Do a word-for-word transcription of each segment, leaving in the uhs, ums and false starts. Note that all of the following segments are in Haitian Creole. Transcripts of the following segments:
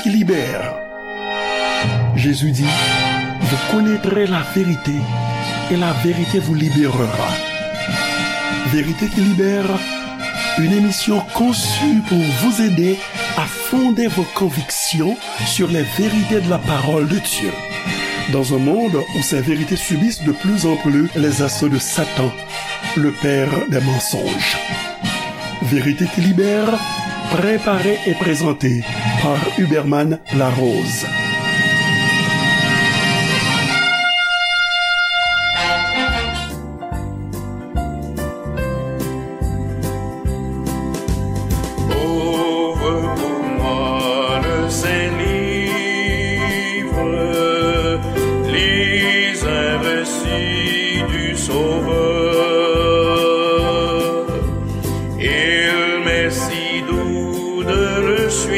qui libère. Jésus dit, vous connaîtrez la vérité et la vérité vous libérera. Vérité qui libère, une émission conçue pour vous aider à fonder vos convictions sur les vérités de la parole de Dieu. Dans un monde où ces vérités subissent de plus en plus les assauts de Satan, le père des mensonges. Vérité qui libère, préparée et présentée par Huberman Larose. Ouvre pour moi le Saint-Livre, lis un récit du Sauveur. Il m'est si doux de le suivre,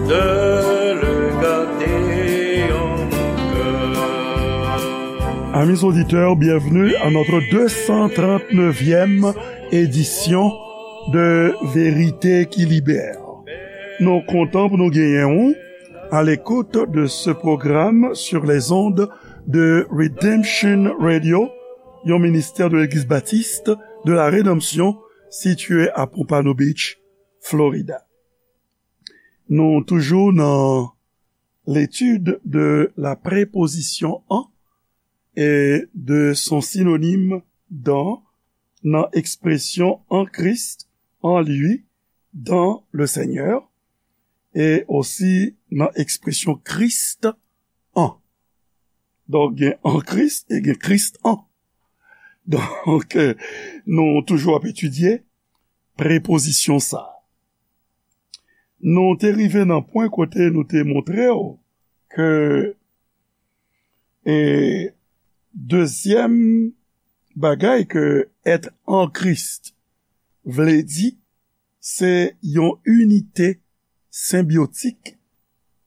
de le garder en mon cœur. Amis auditeurs, bienvenue à notre deux cent trente-neuvième édition de Vérité qui Libère. Nou kontan pou nou genyen ou à l'écoute de ce programme sur les ondes de Redemption Radio, yon ministè de Legliz Batis de la Redanmsyon sitiye a Pompano Beach, Florida. Nou toujou nan l'étude de la préposition en et de son synonyme dans nan ekspresyon en Christ, en lui, dans le Seigneur, e osi nan ekspresyon Christ en. Donk, gen en Christ e gen Christ en. Donk, euh, nou toujou ap etidye prepozisyon sa a. Nou te rive nan pwen kote nou te montre w ke, e, dezyèm bagay ke être en Christ vle di, se yon inite senbyotik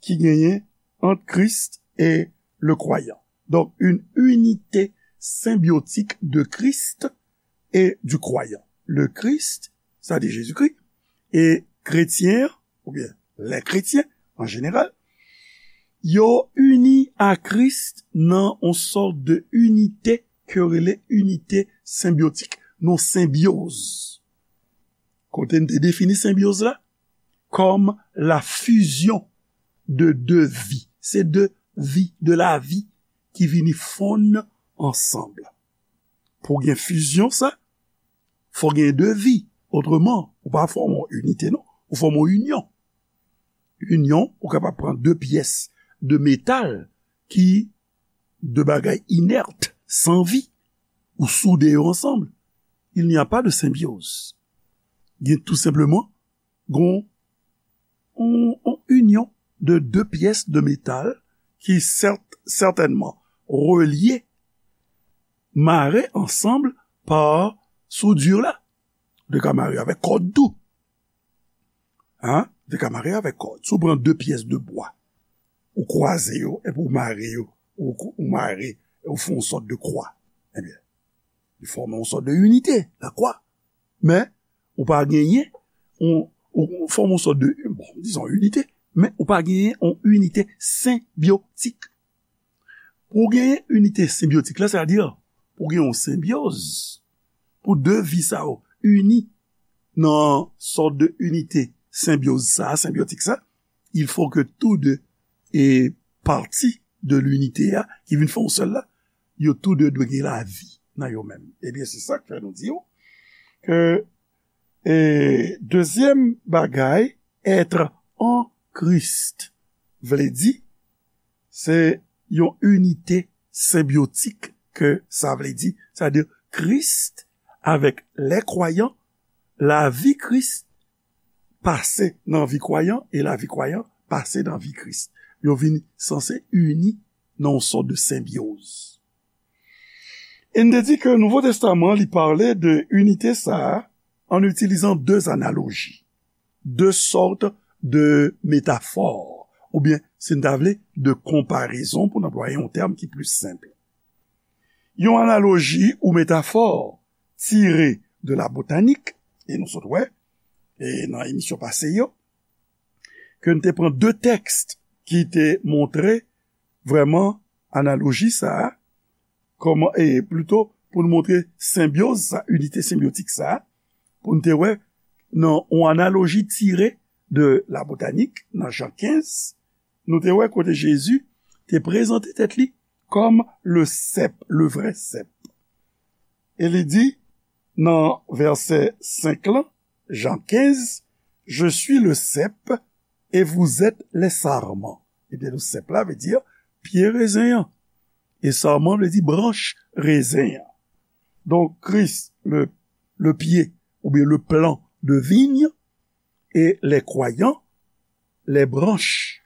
ki genyen ant Kris e le kwayan. Donk, une unité symbiotique de Christ et du croyant. Le Christ, sa di Jezikri, e kretyen, oubyen lè kretyen, an jeneral, yo ini a Kris nan yon sòt de inite ke yo rele inite senbyotik, nan senbyoz. Kote n te defini senbyoz la? Comme la fusion de deux vies. Se de vi, de lavi ki vini fonn ansanm. Pou gen fizyon sa, fò gen de vi. Otreman, ou pa fòme yon inite, non. Ou fòme yon inyon. Inyon, ou kapab pran de pyès de metal ki de bagay inèt, san vi, ou soude yo ansanm. Il n'y a pas de symbiose. Gen tou senpleman, gon, on, on inyon de de pyès de metal ki sèt-, sètènman relye, mare ansanm pa soudure la. Ou te ka mare avèk kòd tou. Hein? Ou te ka mare avèk kòd. Si w pran de pyès de bwa, ou kwaze yo, epi ou mare yo, ou, ou mare, e ou fè yon sòt de kwa. Ebyen, li fòme yon sòt de inite, la kwa. Men, ou pa genyen, on, ou, ou fòme yon sòt de, bon, dizon inite, men ou pa genyen yon inite senbyotik. Pou w genyen inite senbyotik la, sètadi, pou w gen yon senbyoz, pou de vi sa yo ini nan sòt de inite senbyoz sa, senbyotik sa, il faut que tous deux, e, pati de linite a, ki vin fè yon sèl la, yo tou de dwe gen lavi nan yo menm. Ebyen, se sa k fè nou di w ke, e, dezyèm bagay, être en Christ, vle di, se yon inite senbyotik ke sa vle di. Sètadi, Kris avèk lè kwayan, lavi Kris pase nan vi kwayan e lavi kwayan pase nan vi Kris. Yo vin sanse ini nan yon sòt de senbyoz. E n te di ke Nouvo Testaman, li pale de inite sa a an itilizan de analoji, de sòt de metafò, oubyen, si n ta vle, de konparezon, pou n anplwaye yon tèm ki plis senp. Yon analoji ou metafò tire de la botanik, e nou sot wè, e nan emisyon pase yo, ke n te pran de tèks ki te montre vrèman analoji sa a, kòman, e plito pou n montre senbyoz sa, inite senbyotik sa a, pou n te wè nan yon analoji tire de la botanik, nan Jan kenz, nou te wè kote Jezi te prezante tèt li kòm le sèp, le vrè sèp. E li di nan vèsè senk lan, Jan kenz, Je suis le cep et vous êtes les sarments. Ebyen, le sèp la vle di pye rezen an. E sarman vle di branch rezen an. Donk, Kris, le, le pied, oubyen le plant de vigne, et les croyants, les branches.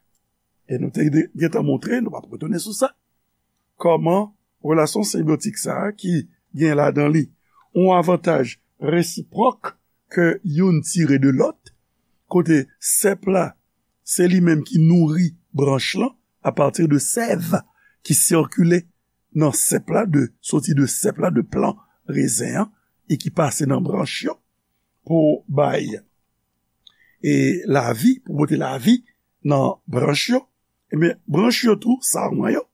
E nou te de- gentan montre, nou p ap retounen sou sa, kòman relasyon senbyotik sa a ki gen ladan li yon avantaj resipwòk ke youn tire de lòt, kote sèp la, se li menm ki nouri branch lan apati de sèv ki sikile nan sèp la, de, soti de sèp la, de plan rezen an, e ki pase nan branch yo pou bay e lavi, pou pote lavi nan branch yo. Ebyen, branch yo tou, sarman yo,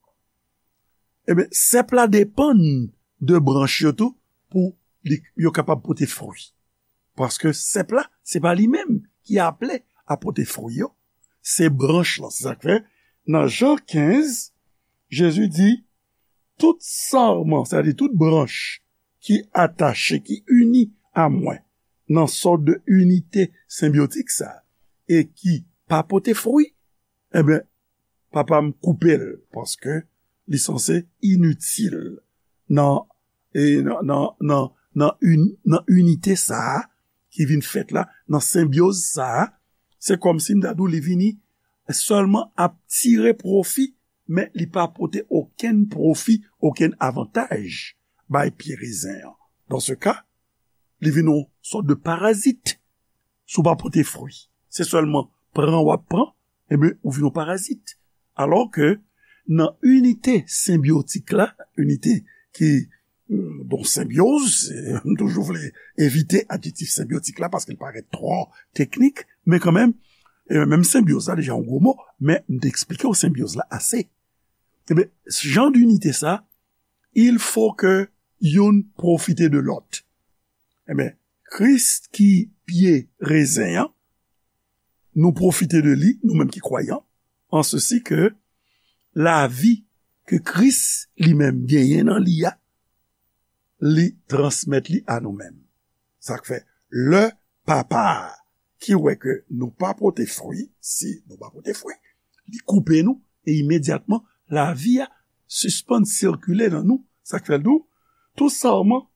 ebyen, sèp la depann de branch yo tou pou li, yo kapab pote fwi. Paske sèp la, se pa li menm ki aple a pote fwi yo, se branch lan. Se sa k fè, nan Jan kenz, Jezi di, tout sarman, sètadi tout branch ki atache, ki ini a mwen, nan sòt de inite senbyotik sa, e ki pa pote fwi, ebyen, Papa m koupe l, paske li sanse initil nan, e nan, nan, nan, nan, in, nan inite sa a ki vin fèt la, nan senbyoz sa a. Se kòmsi m ta di w li vini sèlman ap tire pwofi, men li pa pote okenn pwofi, okenn avantaj bay pye rezen an. Dan se ka, li vin yon sòt de parazit. Si w pa pote fwi, se sèlman pran w ap pran, ebyen, ou vin yon parazit. Alò ke nan inite senbyotik la, inite ki, mm, don senbyoz, m toujou vle evite adjektif senbyotik la paske l parèt twò teknik, men kanmenm, e menm senbyoz la deja yon gwo mo, men m te eksplike w senbyoz la ase. Ebyen, jan d'inite sa, il faut que youn pwofite de lòt. Ebyen, Kris ki pye rezen an, nou pwofite de li, nou menm ki kwayan, an sesi ke lavi ke Kris li menm genyen nan li a, li transmèt li a nou menm. Sa k fè, lè Papa a ki wè ke nou pa pote fwi, si nou pa pote fwi, li koupe nou, e imedyatman, lavi a sispann sikile nan nou. Sa k fè l di w, tout sarman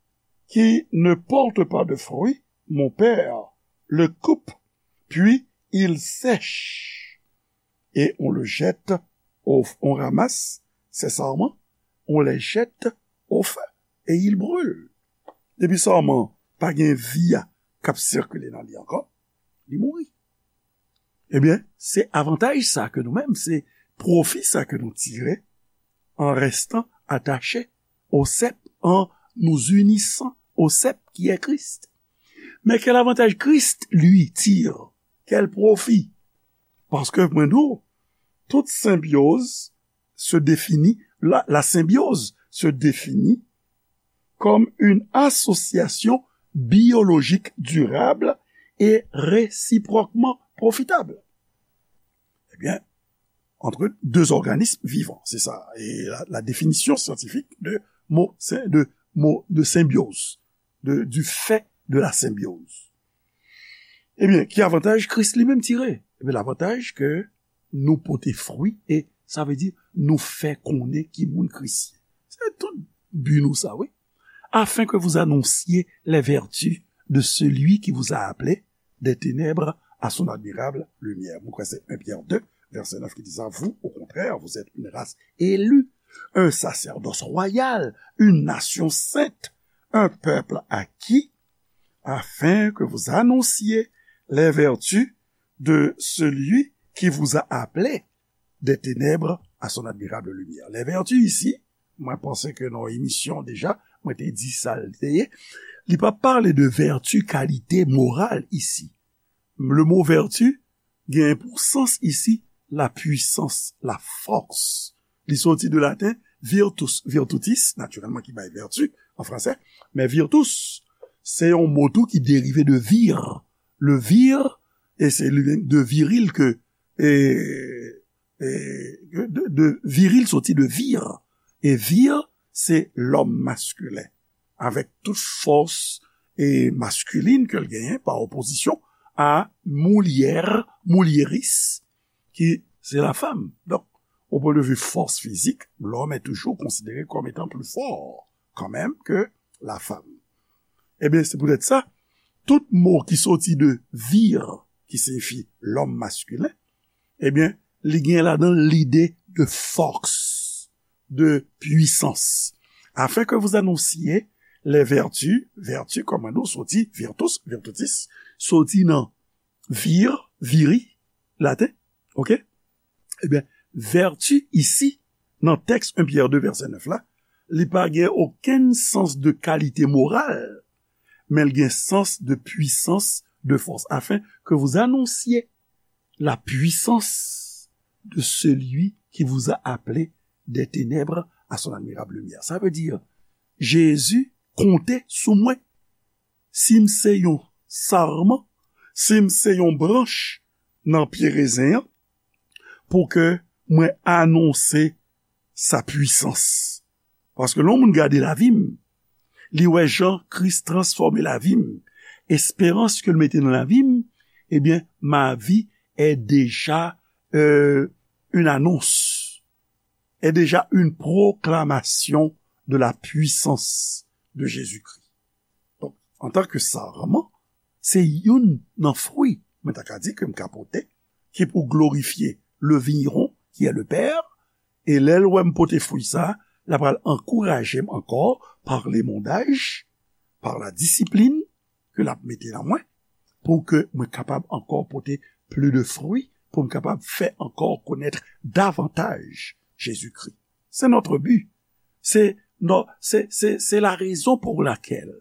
qui ne porte pas de fruits, mon Père le coupe, puis il sèche. Et on le jette au, on ramasse ses sarments, on les jette au feu et il brûle. Depi sarman pa gen vi a k ap sikile nan li ankò, li mouri. Ebyen, se avantaj sa ke nou menm, se pwofi sa ke nou tire en restant attaché au cep, en nous unissant au cep qui est Christ. Mais quel avantage Christ, lui, tire? Quel profit? Paske, mwen di w, tout senbyoz se définit, la, la symbiose se définit comme une association biologique durable et réciproquement profitable. Eh bien, entre deux organismes vivants, c'est ça. Et la, la définition scientifique de mot, de mot de symbiose, de, du fait de la symbiose. Ebyen, ki avantaj Kris li menm tire? Ebyen, lavantaj ke nou pote fwi, e sa vle di nou fè konnen ki moun Kris ye. Se tout bi nou sa, wi. Afin que vous annonciez les vertus de celui qui vous a appelé des ténèbres à son admirable lumière. Mwen kwè se un Pierre deux, verset neuf ki di sa, vous, au contraire, vous êtes une race élue, un sacerdoce royal, une nation sainte, un peuple acquis, afin que vous annonciez les vertus de celui qui vous a appelé des ténèbres à son admirable lumière. Les vertus ici, mwen panse ke nan emisyon deja, mwen te di sa l te ye, li pa pale de vertu, kalite moral isi. Le mot vertu, Gen pou sans isi, la puissance, la force. Li soti de laten virtus, virtutis, natirèlman ki bay vèti an fransè, men virtus, se yon mo tou ki derive de vir. Le vir, e se li menm de viril ke, e, e, de, de viril soti de vir. E vir, se lòm maskilen, avèk tout fòs e maskilin ke l genyen, pa opozisyon a moulyè, moulyeris, ki se la fanm. Donk, au point de vue force physique, l'homme est toujours considéré comme étant plus fort, quand même, que la femme. Ebyen, se poutèt sa, tout mo ki soti de vir, ki siyifi lòm maskilen, ebyen, li gen ladan l lide de force, de puissance. Afin que vous annonciez les vertus, vertu, kòm nou soti, virtus, virtutis, soti nan vir, viri, laten, oke? Ebyen, vèti isi, nan tèks en Pyè de vèsè nèf la, li pa gen okenn sans de kalite moral, men l gen sans de puissance, de force, afin que vous annonciez la puissance de celui qui vous a appelé des ténèbres à son admirable lumière. Sa vle di, Jezi konte sou mwen. Si m se yon sarman, si m se yon branch nan pye rezen an, pou ke mwen anonse sa pwisans. Paske lè yon moun gade lavi m, li wè jan Kris transfòme lavi m, esperans ke l mete nan lavi m, ebyen, ma vie est déjà, euh, une annonce, est déjà une proclamation de la puissance de Jésus-Christ. Donk, antanke sarman, se youn nan fwi, mwen ta ka di, ke m ka pote, ki pou glorifye le vigneron, qui est le Père, e lè l wè m pote fwi sa, l ap pral ankouraje m ankò par limondaj, par la disiplin ke l ap mete nan mwen, pou ke mwen kapab ankò pote pli de fwi, pou m kapab fè ankò konèt davantaj Jezikri. C'est notre but. C'est, non, c'est, c'est, c'est la raison pour laquelle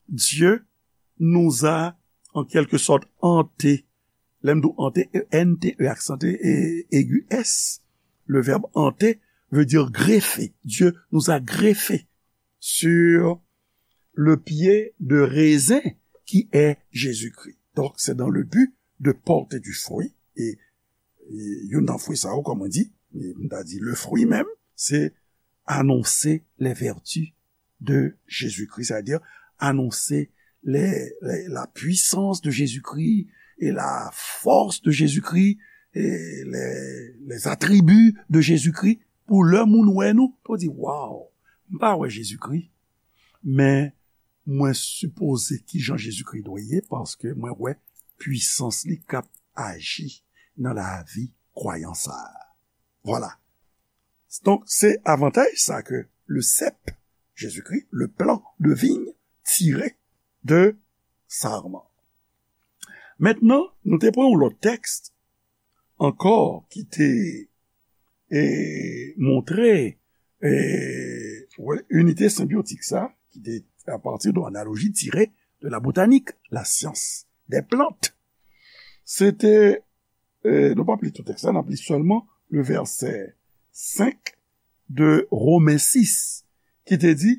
Dieu nous a, en quelque sorte, hantés. Lè m di hanté, E N T E, aksanté, e aigu S. Le verbe hanter veut dire greffer. Dieu nous a greffés sur le pied de raisin qui est Jésus-Christ. Donc, c'est dans le but de porter du fruit. Et, et youn nan fwi sa yo, kòm mwen di, e m ta di le fruit même, c'est annoncer les vertus de Jésus-Christ, c'est-à-dire annoncer les, les, la puissance de Jésus-Christ et la force de Jésus-Christ et les, les attributs de Jésus-Christ. Pou lè moun wè nou, pou di, waw, m pa wè Jezikri, men mwen sipoze kijan Jezikri dwe ye, paske mwen wè pwisans li k ap aji nan lavi kwayan sa a. Vwala. Donk, se avantaj sa ke le cep, Jezikri, le plan de vigne tiré de sarman. Mentnan, nou te pran yon lòt tèks ankò ki te, e, montre, e, inite senbyotik sa, ki te apati de analoji tire de la botanik, la syans dè plant. Se te, e, nou p ap li tout tèks la, n ap li sèlman le vèsè senk de Romen sis, ki te di,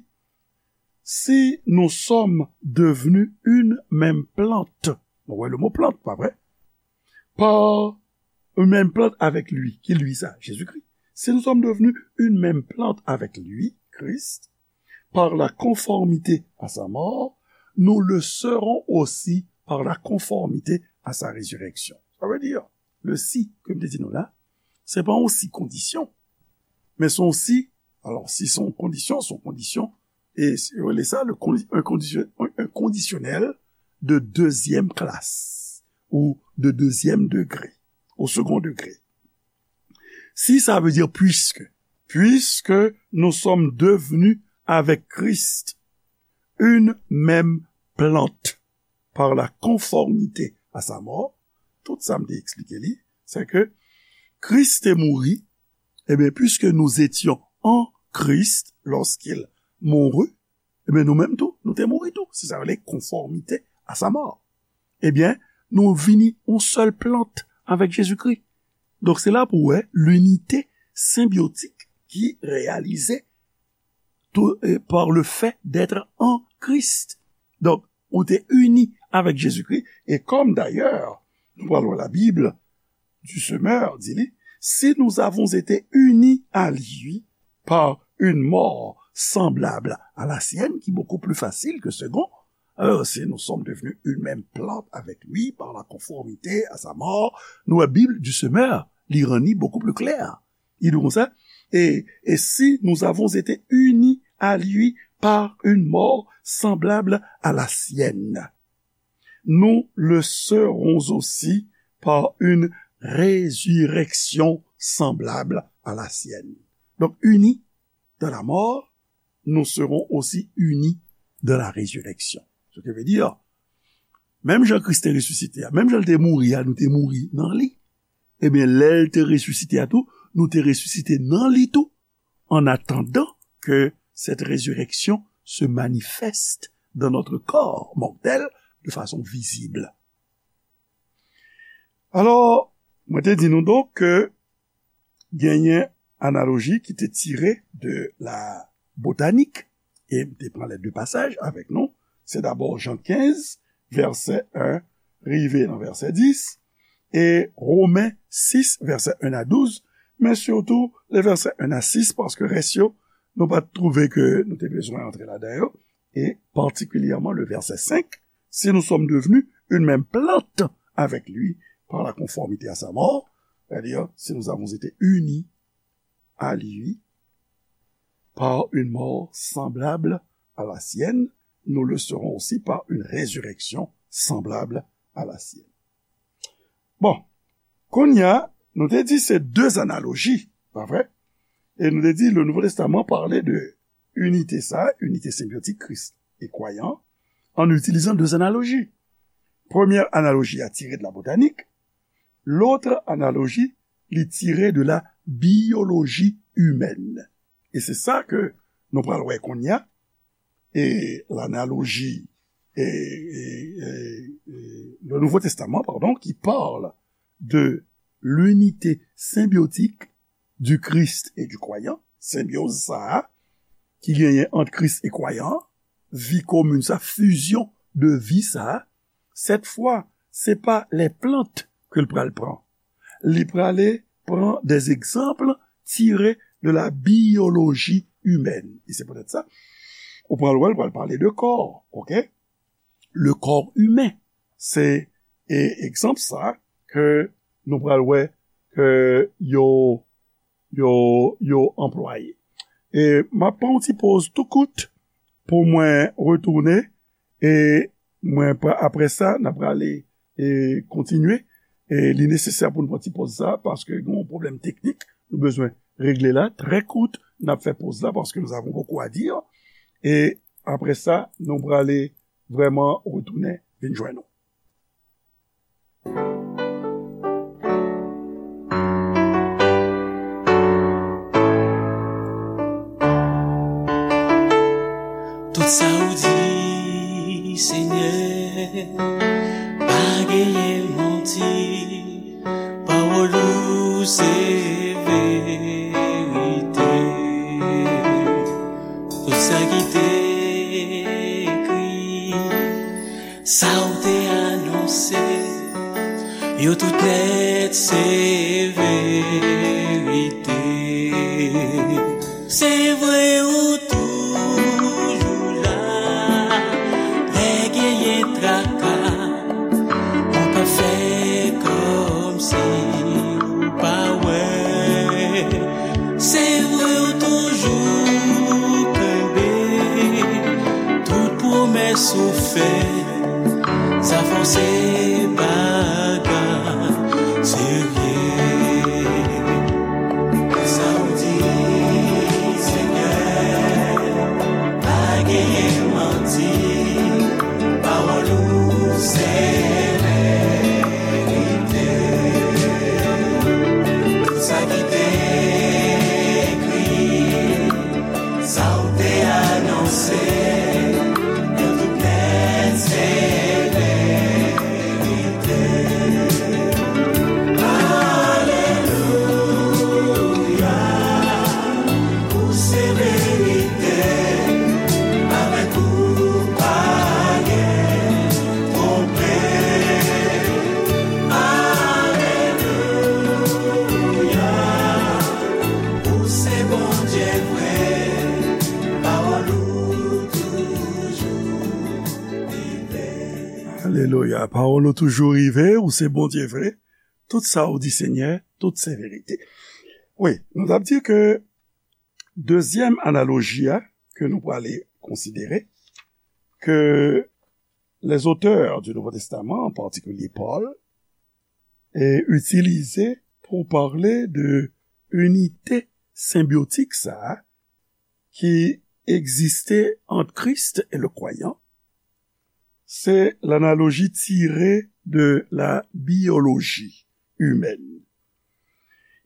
si nous sommes devenus une même plante, nou wè le mo plant, pa vre? Par une même plante avec lui, ki li sa? Jezikri. Si nous sommes devenus une même plante avec lui, Christ, par la conformité à sa mort, nous le serons aussi par la conformité à sa résurrection. Sa vle di, le si ke m te di nou la, se pa yon si kondisyon, men se yon si, alò, si se yon kondisyon, se yon kondisyon, e yo rele sa le condi-, un condi-, un, un conditionnel de deuxième classe ou de deuxième degré, au second degré. Si sa vle di puisque, puisque nous sommes devenus avec Christ une même plante par la conformité à sa mort, tout sa m te eksplike li, se ke Kris te mouri, ebyen, puisque nous étions en Christ lorsqu'il mourut, ebyen, nou menm tou, nou te mouri tou. Se sa yo rele conformité à sa mort. Ebyen, nou vini yon sèl plant avèk Jezikri. Donk, se la pou w wè linite senbyotik ki reyalize tou, eh, par le fait d'être en Christ. Donk, ou te ini avèk Jezikri, e kòm dayè, nou pral wè Labib, du semeur, di li, si nous avons été unis à lui par une mort semblable à la sienne, qui est beaucoup plus facile que second, alors si nous sommes devenus une même plante avec lui par la conformité à sa mort, nou wè Bib du semeur, li rann li beaucoup plus clair. Li di konsa, et, et si nous avons été unis à lui par une mort semblable à la sienne, nous le serons aussi par une résurrection semblable à la sienne. Donc, unis dans la mort, nous serons aussi unis dans la résurrection. Ce qui veut dire, menm jan Kris te resisite a, menm jan l te mouri a, nou te mouri nan li. Ebyen, lè l te resisite a tou, nou te resisite nan li tou, en attendant que cette résurrection se manifeste dans notre corps mortel de façon visible. Alò, mwen te di nou donk ke genyen analoji ki te tire de la botanik, e m te pran lè de pasaj avèk nou. Se dabò Jan kenz, vèsè en, rive nan vèsè dis, e Women sis, vèsè en a douz, men sitou le vèsè en a sis, paske rès yo, nou pa t twouve ke nou te bezwen antre ladan yo, e patikilyèman le vèsè senk, si nous sommes devenus une même plante avec lui par la conformité à sa mort, c'est-à-dire si nous avons été unis à lui par une mort semblable à la sienne, nous le serons aussi par une résurrection semblable à la sienne. Bon, kounye a, nou te di se de analoji, pa vre? E nou te di le Nouveau Testament parlait de unité sa, unité symbiotique Christ et croyant, en utilisant deux analogies. Premye analoji a tire de la botanik, lòt analoji li tire de la biyoloji imèn. E se sa ke nou pral wè kounye a, e l'analoji, e, e, e, e, le Nouveau Testament, pardon, qui parle de l'unité symbiotique du Christ et du croyant, senbyoz sa a ki genyen ant Kris e kwayan, vi komin sa, fizyon de vi sa a, cette fois, se pa les plantes ke l pral pran. Li prale pran des exemples tirés de la biologie humaine. E se poutèt sa, ou pral wè, l pral pale de kò, ok? Le corps humain. Se, e, egzanp sa ke nou pral wè ke yo, yo, yo anplwaye. E m ap pran yon ti poz tou kout pou mwen retounen, e mwen pra-, apre sa, n ap prale, e kontinye. E li nesesè pou nou pran ti poz sa, paske gen yon pwoblèm teknik, nou bezwen regle la, trè kout, n ap fè poz la, paske nous avons beaucoup à dire. E apre sa, nou prale vrèman retounen vin jwenn nou. Tout sa ou di, Senyè, pa genyen manti. Pawòl ou se verite. Tout sa ki te ekri, sa w te anonse, yo tout nèt se verite. Se vre ou toujou la, lè genyen traka, ou pa fè kòmsi ou pa wè. Se vre ou toujou kenbe tout pwomès ou fè. Sa fè w se bagay serye. Sa w di, Senyè, pa genyen manti. Pawòl ou se verite. Tout sa ki te ekri, sa w te anonse, yo tout nèt se verite. Alelouya. Pawòl ou toujou rive, ou se Bondye vre. Tout sa ou di, Senyè, tout se verite. Wi, nou t ap di ke dezyèm analoji a ke nou prale konsidere, ke les auteurs du Nouveau Testament, en particulier Paul, e itilize pou pale de inite senbyotik sa a ki egziste ant Kris e le kwayan, se lanaloji tire de la biyoloji imèn.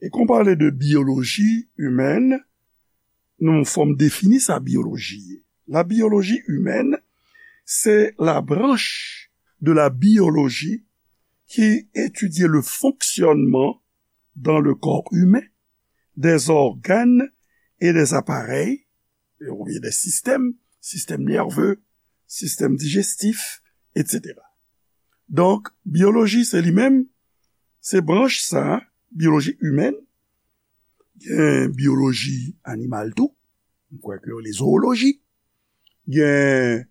E kan w pale de biyoloji imèn, nou fò m defini sa biyoloji ye. La biyoloji imèn, se la branche de la biologie qui étudie le fonctionnement dans le corps humain des organes et des appareils, oubyen des systèmes, système nerveux, système digestif, et cetera. Donk, biyoloji se li menm, se branch sa, biyoloji imèn, gen biyoloji animal tou, m kwè ke yo rele zooloji, gen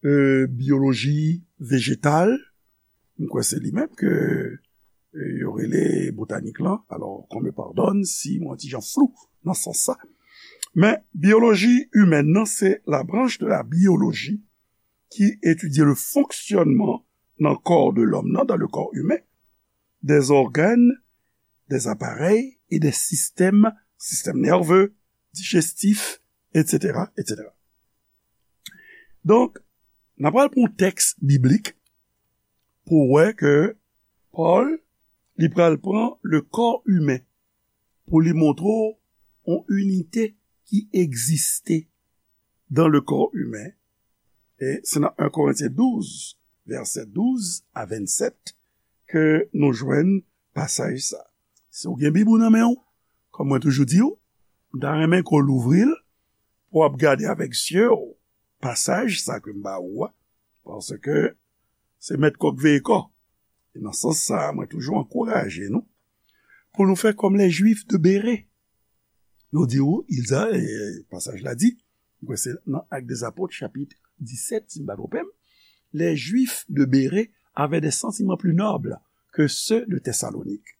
e, biyoloji vejetal, m kwè se li menm ke e, yo rele botanik lan. Alò, qu'on me pardonne si mwen ti jan flou nan sans sa. Men, biyoloji imèn nan, se la branche de la biologie qui étudie le fonctionnement dans le corps de l'homme, non, dans le corps humain, des organes, des appareils et des systèmes, système nerveux, digestif, et cetera, et cetera. Donk, n ap pral pran yon tèks biblik pou wè ke Pòl, li pral pran le corps humain pou li montre w yon inite ki egziste dans le corps humain. E se nan en Korentyen douz, vèsè douz a vennsèt, ke nou jwenn pasaj sa. Si w gen Bib ou nan men w, kòm mwen toujou di w, m ta renmen ke w louvri l pou w ap gade avèk zye w pasaj sa ke m ba ou a, paske se mèt kòk veye kò. E nan sans sa a, mwen toujou ankouraje nou pou nou fè kòm les Juifs de Bérée. Yo di ou, ils a, e, pasaj la di, m kwè se nan Actes des Apôtres, chapit disèt, si m pa twonpe m, les Juifs de Bérée avaient des sentiments plus nobles que ceux de Thessalonique.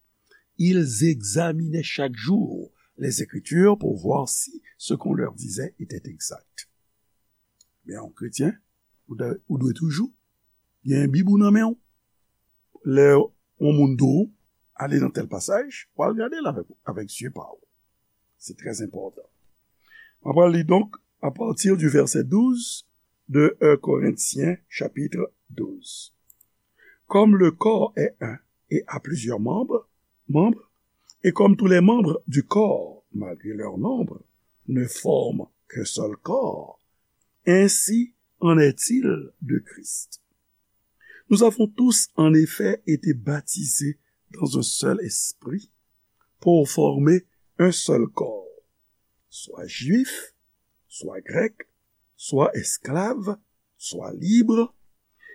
Ils examinaient chaque jour les Écritures pour voir si ce qu'on leur disait était exact. Men yon kretyen, ou dwe, ou dwe toujou gen Bib ou nan men w. Lè yon moun di w, ale nan tèl pasaj, w al gade l avèk, avèk zye pa w. Se trè enpòtan. Mwen pral li donk, à partir du verset douze de un Corinthiens chapitre douze. Comme le corps est un et a plusieurs membres, membres, et comme tous les membres du corps, malgré leur nombre, ne forment qu'un seul corps, ainsi en est-il de Christ. Nous avons tous en effet été baptisés dans un seul esprit pour former un seul corps, soit juif, soit grec, soit esclave, soit libre,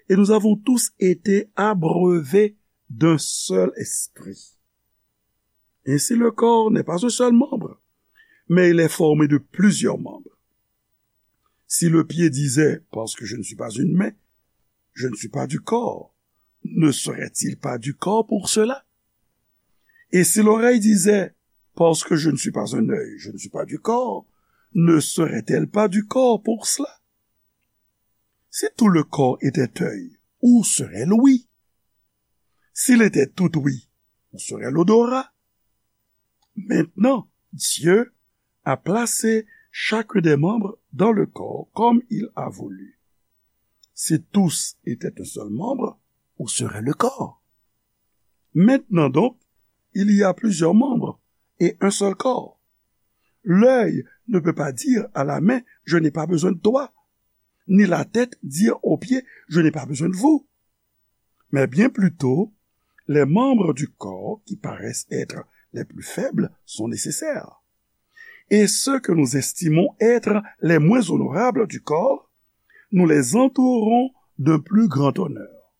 et nous avons tous été abreuvés d'un seul esprit. Ainsi le corps n'est pas un seul membre, mais il est formé de plusieurs membres. Si le pied disait, parce que je ne suis pas une main, je ne suis pas du corps, ne serait-il pas du corps pour cela? Et si l'oreille disait, parce que je ne suis pas un œil, je ne suis pas du corps, ne serait-elle pas du corps pour cela? Si tout le corps était œil, où serait l'ouïe? S'il était tout ouïe, où serait l'odorat? Maintenant, Dieu a placé chacun des membres dans le corps comme il a voulu. Si tous étaient un seul membre, où serait le corps? Maintenant donc, il y a plusieurs membres et un seul corps. L'œil ne peut pas dire à la main, je n'ai pas besoin de toi, ni la tête dire aux pieds, je n'ai pas besoin de vous. Mais bien plutôt, les membres du corps qui paraissent être les plus faibles sont nécessaires. Et ceux que nous estimons être les moins honorables du corps, nous les entourons d'un plus grand honneur.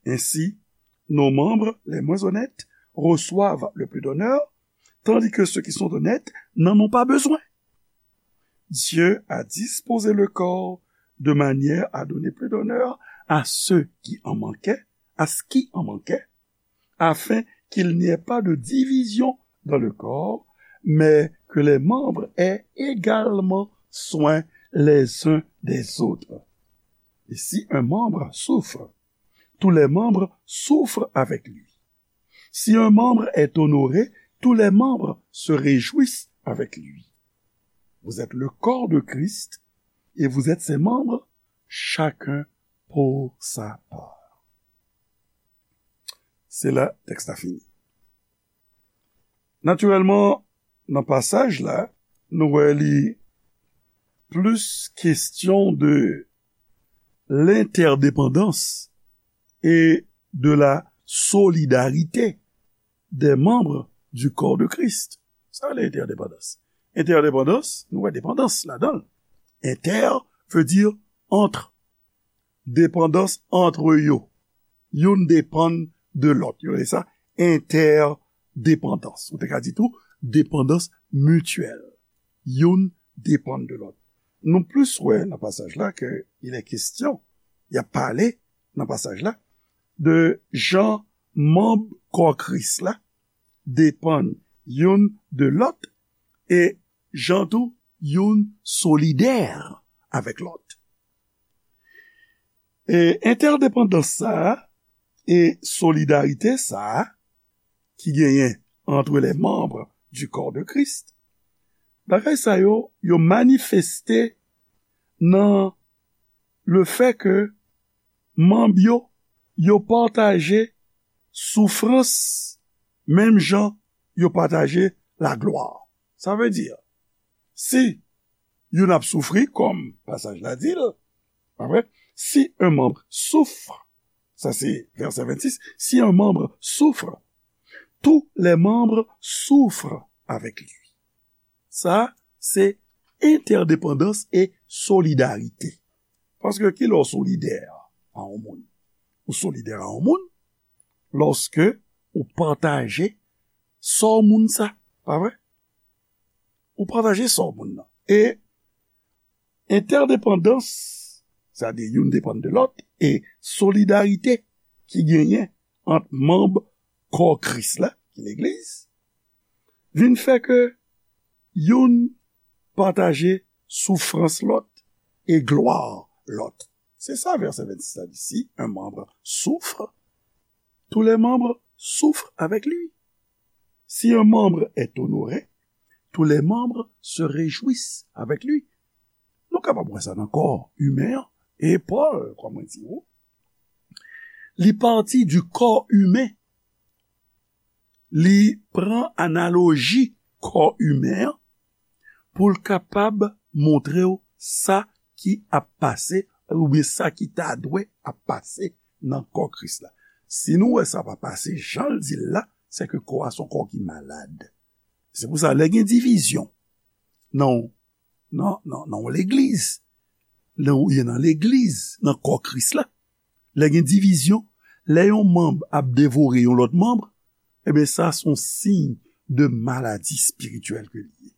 Ainsi, nos membres les moins honnêtes reçoivent le plus d'honneur, tandis que ceux qui sont honnêtes n'en ont pas besoin. Dieu a disposé le corps de manière à donner plus d'honneur à ceux qui en manquaient, à ce qui en manquait, afin qu'il n'y ait pas de division dans le corps, mais que les membres aient également soin les uns des autres. Et si un membre souffre, tous les membres souffrent avec lui. Si un membre est honoré, tous les membres se réjouissent avec lui. Vous êtes le corps de Christ et vous êtes ses membres, chacun pour sa part. Se la tèks la fini. Natirèlman, nan pasaj la, nou wè li plis kesyon de l'interdépendance et de la solidarité des membres du corps de Christ. Sa le entèdepandans. Entèdepandans, nou wè depandans ladan l. Inter veut dire entre. Depandans antre yo. Youn depann de lòt. Yo rele sa entèdepandans. Ou te ka di tou depandans mityèl. Youn depann de lòt. Nou plis wè nan pasaj la ke il est question, y ap pale nan pasaj la, de jan manb kò Kris la depann youn de lòt e jan tou youn solidè avèk lòt. E entèdepandans sa a e solidarite sa a ki genyen entre les membres du corps de Christ, bagay sa yo, yo manifeste nan le fait que manb yo, yo pataje soufrans menm jan yo pataje laglwa. Sa vle di, si youn ap soufri, kòm pasaj la di l, pa vre? Si un membre souffre, sa se vèsè vennsis, si un membre souffre, tous les membres souffrent avec lui. Sa, se entèdepandans e solidarite. Paske ki lè w solidè a yon moun? Ou solidè a yon moun lòske ou pataje sò moun sa, pa vre? Ou pataje sò moun nan. E entèdepandans, sètadi youn depann de lòt, e solidarite ki genyen ant manb kò Kris la, ki legliz, vin fè ke youn pataje soufrans lòt e glwa lòt. Se sa vèsè vennsis la di, si un membre souffre, tous les membres souffrent avec lui. Si un membre est honoré, tous les membres se réjouissent avec lui. Nou kapab wè sa nan kò imen an. E Pòl, kòm mwen di ou, li pati du corps humain. Li pran analoji kò imen an pou l kapab montre w sa ki ap pase, oubyen sa ki ta dwe ap pase nan kò Kris la. Si nou wè sa pa pase jan l di l la, se ke kò a se yon kò ki malad. Se pou sa, lè gen divizyon nan, nan, nan, nan yon legliz, lè w ye nan legliz, nan kò Kris la, lè gen divizyon, lè yon manm ap devore yon lòt manm, ebyen, sa se yon siy de maladi espirityèl ke li ye.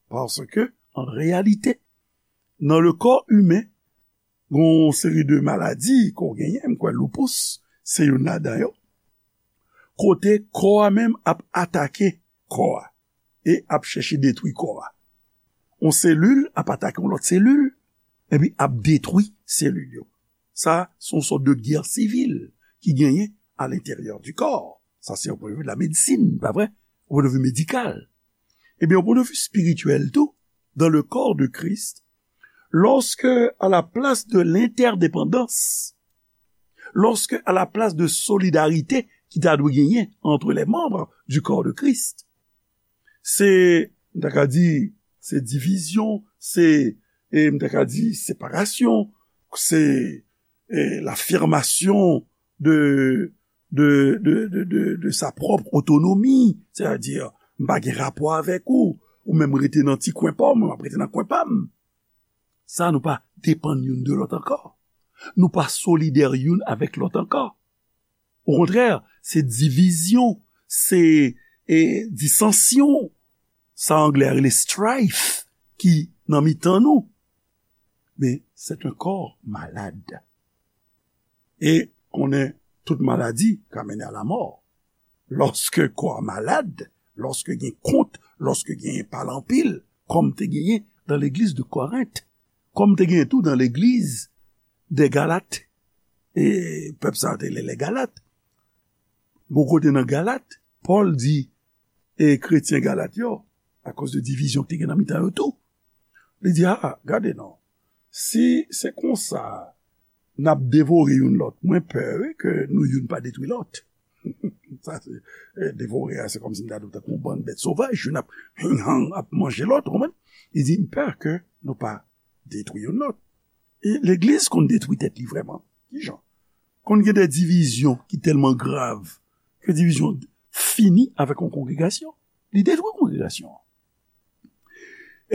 Paske, an reyalite, nan le kò imen, gen yon seri de maladi ke w genyen, m kwè lupus se youn ladan yo, kote kò a menm ap atake kò a e ap chèche detwi kò a. Yon selil ap atake yon lòt selil, epi ap detwi selil yo. Sa, se yon sòt de gè sivil ki genyen à l'intérieur du corps. Sa, se yon pwen de vi de la medsin, pa vre? Yon pwen de vi medikal. Ebyen, yon pwen de vi espirityèl tou, dans le corps de Christ, lorsque, à la place de l'interdépendance, lorsque, à la place de solidarité ki ta dwe genyen entre les membres du corps de Christ, se, m ta ka di, se divizyon, se, e, m ta ka di, separasyon, se, e, l'affirmation de, de, de, de, de, de sa pwòp otonomi, sètadi, m pa gen rapò avèk ou, ou menm rete nan ti kwen pa w, mwen m ap rete nan kwen pa m. Sa, nou pa depann youn de lòt ankò. Nou pa solidè youn avèk lòt ankò. Okontrè, se divizyon, se, e, disansyon. Sa anglè a rele strife ki nan mitan nou. Men, c'est un corps malade. E konnen tout maladi ka mennen a lamò. Lòske kò a malad, lòske gen kont, lòske gen pale anpil, kòm te genyen dan legliz de Korent, kòm te genyen tou dan legliz de Galat, e pèp sa yo te rele Galat. Gon kote nan Galat, Pòl di, e kretyen Galat yo, akoz de divizyon ki te gen nan mitan yo tou, li di, a, gade non, si se konsa n ap devore youn lòt, mwen pè, wi, ke nou youn pa detwi lòt. Sa se, e, devore a, se kòmsi m ta di w tankou yon bann bèt sovaj, youn ap hing hang, ap manje lòt, ou konprann? Li di, m pè ke nou pa detwi youn lòt. E legliz konn detwi tèt li vrèman. Kijan? Konn gen de divizyon ki tèlman grav ke divizyon fini avèk yon kongregasyon. Li detwi kongregasyon an.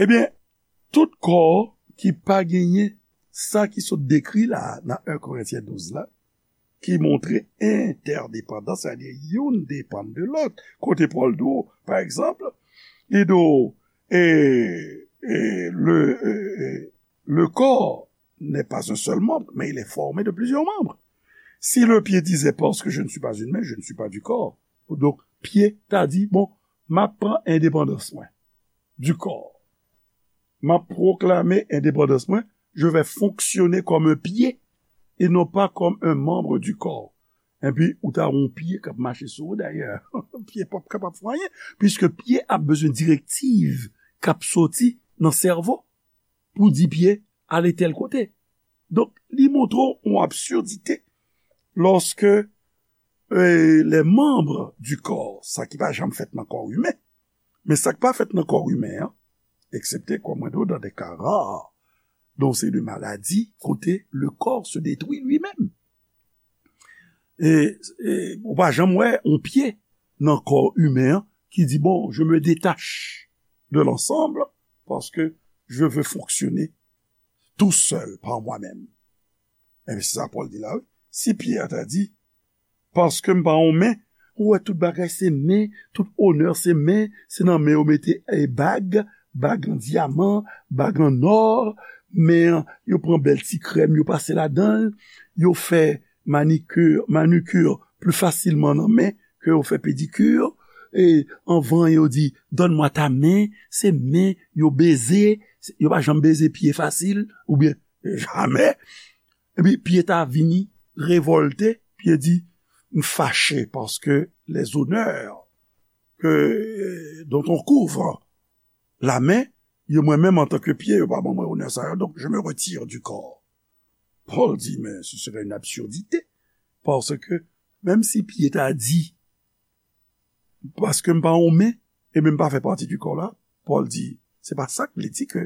Ebyen, tout kò ki pa genyen sa ki sot dekri la a nan en Korentyen douz la, ki montre entèdepandans, sètadi youn depann de lòt. Kote Pòl di w, pa egzanp, li di w, e, e, le, e, e, le corps n'est pas un seul membre, mais il est formé de plusieurs membres. Si le pied disait, parce que je ne suis pas une main, je ne suis pas du corps. Donk, pye ta di, bon, m ap pran endepandans mwen du corps. M ap pwoklame endepandans mwen, je vais fonctionner comme un pied et non pas comme un membre du corps. Epi, ou ta wè yon pye k ap mache sou ou, dayè. Pye p ap kapab fè anyen, piske pye ap bezwen direktiv k ap soti nan sèvo pou di pye ale tèl kote. Donk, li montre w yon absurdite lòske, e, les membres du corps, sa ki pa janm fèt nan kò imen, men sa k pa fèt nan kò imen an, eksepte, kòm mwen di w, dans des cas rares, donk se de maladi kote le corps se détruit lui-même. E, e ou pa janm wè yon pye nan kò imen an ki di, bon, je me détache de l'ensemble parce que je veux fonctionner tout seul par moi-même. Ebyen, se sa Pòl di la, wi. Si pye a ta di, paske m pa yon men, ou wè tout bagay se men, tout onè se men, se nan men yo mete, e, bag, bag an dyaman, bag an nò, men yo pran bèl ti krèm, yo pase ladan l, yo fè manikir, manikir pli fasilman nan men ke yo fè pedikir. E anvan yo di, donne-moi ta main, se men yo beze, yo pa janm beze pye fasil, oubyen jamè. Epi pye ta vini revòlte, pye di, m fache paske les honneurs que, dont on couvre la main, yo mwen menm antanke pye, yo pa ban mwen onè sa yo, donc je me retire du corps. Pòl di, men ce serait une absurdité, paske menm si pye ta di, paske m pa yon men, e men m pa fè pati du corps la, Pòl di, se pa sa k vle di ke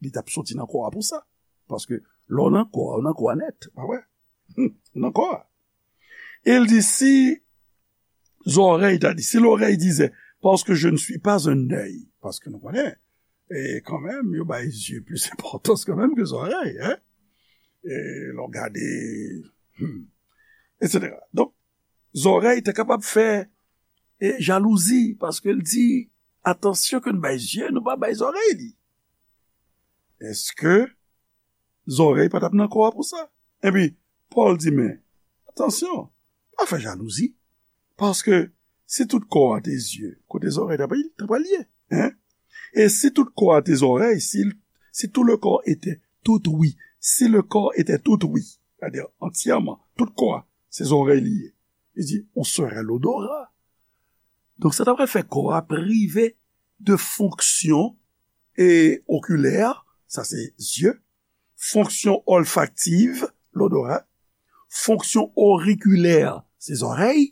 li t ap soti nan kò a pou sa. Paske lè w nan kò a, ou nan kò a nèt, pa vre? Ou nan kò a. E l di, si zòrèy ta di, si l'oreille disait, parce que je ne suis pas un œil, paske nou konnen, e kanmenm, yo bay zye plis enpòtans kanmenm ke zòrèy, hein? E lè w gade, hmm, et cetera. Donk, zòrèy te kapab fè, e, jalouzi, paske l di, atansyon ke n bay zye, nou pa bay zòrèy li. Èske zòrèy pa t ap nan kò a pou sa? Epi, Pòl di, men, atansyon, pa fè jalouzi, paske si tout kò a te zye, kote zòrèy ta pral, ta pral ye, hein? E si tout kò a te zòrèy, si, si tout le corps était tout ouïe, si le corps était tout ouïe, c'est-à-dire entièrement, tout kò a, se zòrèy li ye. Li di, on serait l'odorat. Donk, sa ta pral fè kò a prive de fonksyon e okilè, sa se zye, fonksyon olfaktiv, l'odorat, fonksyon orikilè, se zòrèy.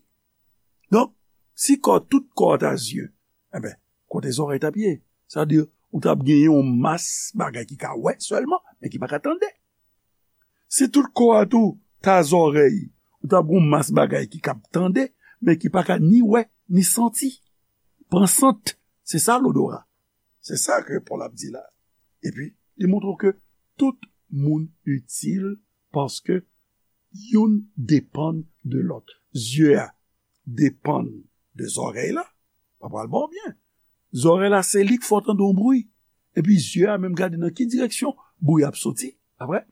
Donk, si kò, tout kò ta zye, enben, kote zòrèy t ap ye? Sa vle di, ou t ap genyen yon mas bagay ki ka wè sèlman, men ki pa ka tande. Si tout kò a tou ta zòrèy, ou t ap gen yon mas bagay ki ka tande, men ki pa ka ni wè, ni santi. Pran sant, se sa l'odorat. Se sa ke Pòl ap di la. Epi, li montre w ke tout moun itil paske youn depann de lòt. Zye a depann de zòrèy la, pa pral ba w byen. Zòrèy la, se li k fè w tande yon bri. Epi zye a menm gade nan ki direksyon bri a ap soti, pa vre?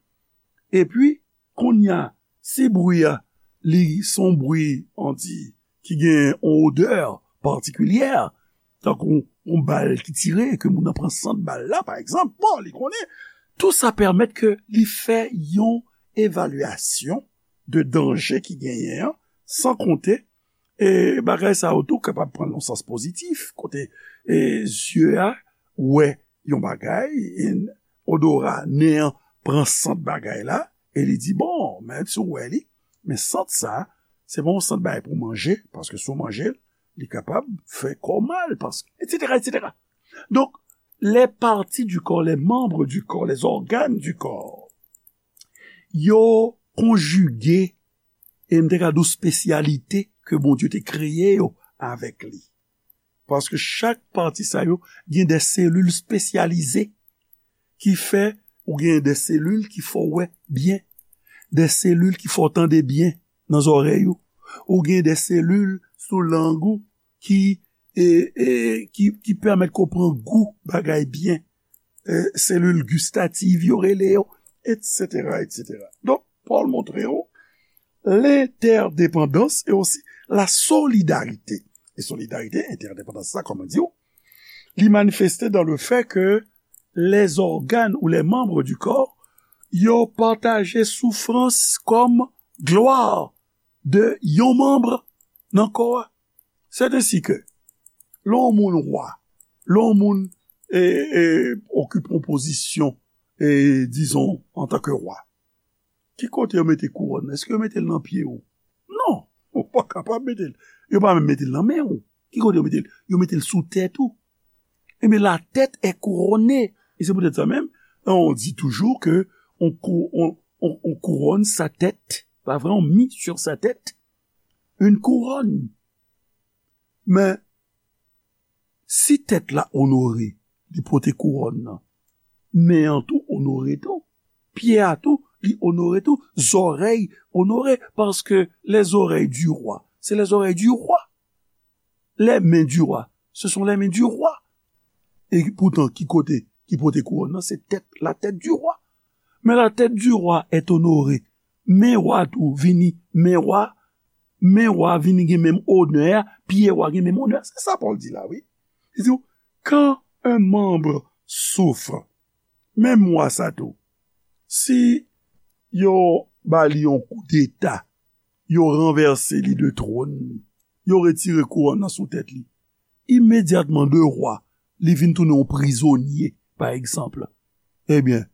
Epi, kounye a, Si bri a, li se yon bri, on di, ki gen yon odè patikilyè, tankou yon bal ki tire, ke moun nan pran sant bal la, pa egzanp, bon, li konnen, tou sa pèmèt ke li fè yon evalyasyon de danje ki genyen an, san konte, e bagay sa yo tou kapab pran nan sans pozitif, kote e zye a wè yon bagay, e odora nen an pran sant bagay la, e li di, bon, men si w wè li, men sant sa, se pa yon sant bagay pou manje, paske si w manje l, li kapab fè kò w mal, paske, etsetera, etsetera. Donk, les parties du corps, les membres du corps, les organes du corps, yo konjige, e m te ka di w espesyalite ke Bondye te kreye yo avèk li. Paske chak pati sa yo gen de selil espesyalize ki fè ou gen de selil ki fè w wè byen, de selil ki fè w tande byen nan zòrèy ou, ou gen de selil sou lang ou ki, e, e, ki, ki pèmèt ke w pran gou bagay byen, e, selil gistativ yo rele yo, etsetera, etsetera. Donk, Pòl montre w lentèdepandans e osi la solidarite. E solidarite, entèdepandans sa, kòman di w, li manifeste dans le fait que les organes ou les membres du corps, yo pataje soufrans kòm glwa de yon manm nan kò a. C'est ainsi que, lè yon moun wa, lè yon moun, e, e, okipe yon pozisyon, e, dizon, antanke wa, ki kote yo mete kouwòn nan? Èske yo mete l nan pye w? Non, ou pa kapab mete l. Yo pa menm mete l nan men w. Ki kote yo mete l? Yo mete l sou tèt ou. Ebyen, la tête est couronnée. E se poutèt sa menm, on dit toujours que on cou-, on, on, on couronne sa tête. Pa vre, on mit sur sa tête une couronne. Men, si tèt la onore, li pote kouwòn nan, men an tou onore tou, pye a tou, li onore tou, zòrèy onore, paske les oreilles du roi, c'est les oreilles du roi. Les mains du roi, ce sont les mains du roi. E poutan, ki kote ki pote kouwòn nan? Se tèt, la tête du roi. Mais la tête du roi est honorée. Men wa tou vini, men wa, men wa vini gen menm onè a, pye wa gen menm onè a. Se sa Pòl di la, wi. Li di, quand un membre souffre, menm wa sa tou, si yo ba li yon koudeta, yo ranvèse li de twòn li, yo retire kouwòn nan sou tèt li, imedyatman de wa, li vin tounen yon prizonye, pa egzanp. Ebyen,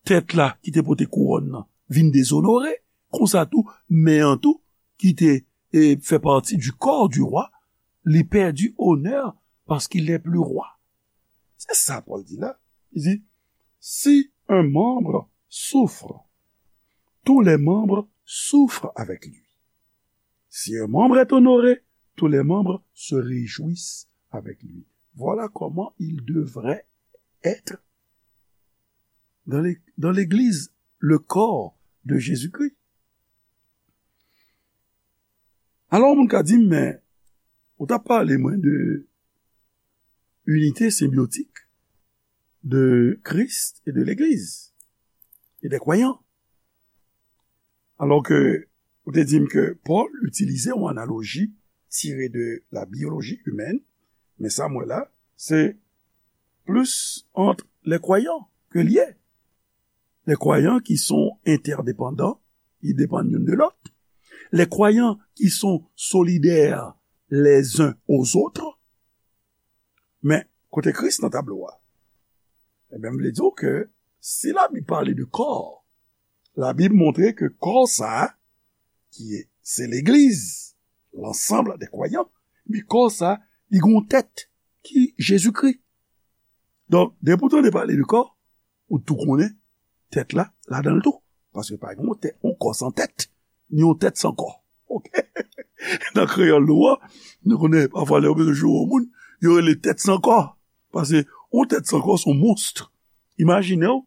tèt la ki te pote kouwòn nan vin dezonore, konsa tou, men an tou, ki te, e, fè pati du corps du roi, li pèdi onè paske il n'est plus roi. Se sa Pòl di la. Li di, si un membre souffre, tous les membres souffrent avec lui. Si un membre est honoré, tous les membres se réjouissent avec lui. Voilà comment il devrait être dans les, dans l'Église, le corps de Jésus-Christ. Alò, moun ka di m, men, ou t ap pale mwen de unité symbiotique de Christ et de l'Église et des croyants. Alò ke ou te di m ke Pòl itilize yon analoji tire de la biologie humaine, men sa m wè la, se plis ant les croyants ke l ye. Les croyants qui sont interdépendants, ils dépendent youn de lòt. Les croyants qui sont solidaires les uns aux autres. Men, kote Kris nan tablo a? Ebyen, m vle di w ke si Labib pale de kò, Labib montre ke kò sa a, ki se legliz, l'ensemble des croyants, men kò sa a, li gen yon tèt ki Jezikri. Donk, depi w tande pale de kò, ou tou konnen tèt la, ladan l tou. Paske pa gen yon tèt, yon kò san tèt, ni yon tèt san kò. Oke? Nan kreyòl nou an, nou konnen pafwa lè yo bezwen joure yon moun, yo rele tèt san kò. Paske yon tèt san kò se yon mons. Imajine w,